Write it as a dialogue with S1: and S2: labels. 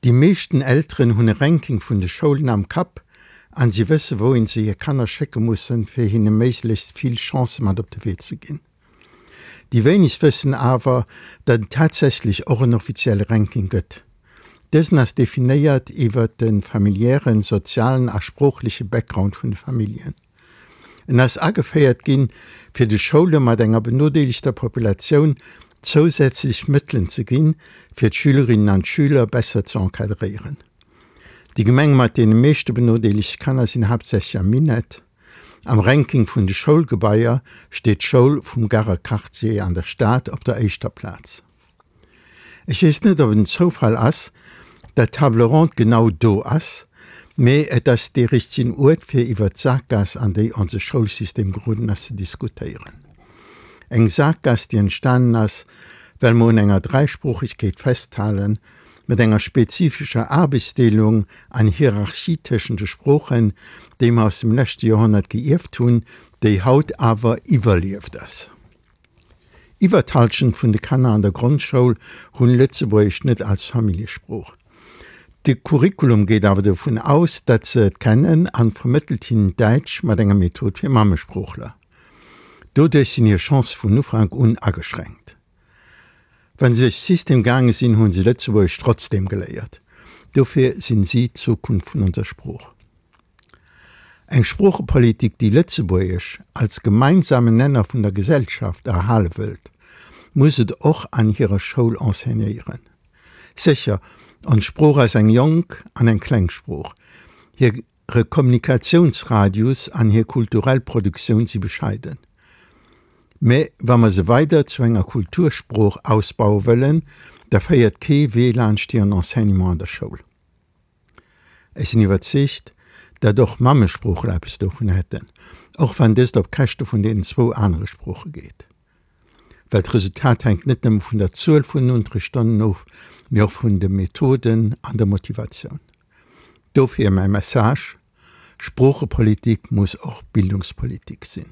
S1: Déi meeschten Elteren hunn e Ranking vun de Schoulen am Kapp an si wësse wouhin se hir Kanner schécke mussen, fir hinne méiglechst vill Chancë mat op de Wee ze ginn. Déi wéinegst wëssen awer, datt et tatsächlech och en offizielle Ranking gëtt. Dësen ass definéiert iwwer de familiären, sozialen a sproochleche Background vun de Familljen. En ass ageféiert ginn, fir de Schoule mat enger benodeelegter Populatioun zousätzlech Mëttelen ze ginn, fir d'Schülerinnen an d'Schüler besser ze encadréieren. Déi Gemenge mat deene meeschte benodeelegte Kanner sinn haaptsächlech am Minett. Am Ranking vun de Schoulgebaier steet d'Schoul vum Garer Quartier an der Stad op der éischter Plaz. Ech weess net, ob et en Zoufall ass, dat d'Table ronde genau do ass, mee et ass dee richtegen Uert, fir iwwert d'Sakgaass, an déi onse Schoulsystem geroden ass, ze diskutéieren. Eng Sakgaass, déi entstanen ass, well mer un enger Dräisproochegkeet festhalen, mat enger spezifescher Aarbechtsdeelung an Hierarchie tëschent de Sproochen, déi mer aus dem leschte Joerhonnert geierft hunn, déi haut awer iwwerlieft ass. Iwwer d'Hallschent vun de Kanner an der Grondschoul hunn Lëtzebuergesch net als Familljesprooch. De Curriculum geet awer dovun aus, datt se et kennen an vermëttelt hinnen Däitsch mat enger Method fir Mammesproochler. Doduerch sinn hir Chancë vun Ufank un ageschränkt. Wa se duerch System gaange sinn, hu se Lëtzebuergesch trotzdeem geléiert. Dofir sinn si d'Zukunft vun onser Sprooch. Eng Sproochepolitik, déi Lëtzebuergesch als gemeinsamen Nenner vun der Gesellschaft erhale wëllt, muss et och an hirer Schoul enseignéieren. Sécher, ons Sprooch ass eng jonk an eng kleng Sprooch. Hire Kommunikatiounsradius an hir kulturell Produktioun si bescheiden. Mä wa mer se weider zu enger Kultursprooch ausbaue wëllen, da féiert kee Wee laanscht hiren Enseignement an der Schoul. Ech sinn iwwerzeegt, datt och Mammesproochler eppes dovun hätten, och wann dëst op Käschte vun deenen zwou anere Sprooche geet. Well d'Resultat hänkt net nëmme vun der Zuel vun den Unterrichtsstonnen of, mee och vun de Methoden an der Motivatioun. Dofir mäi Message, Sproochepolitik muss och Bildungspolitik sinn.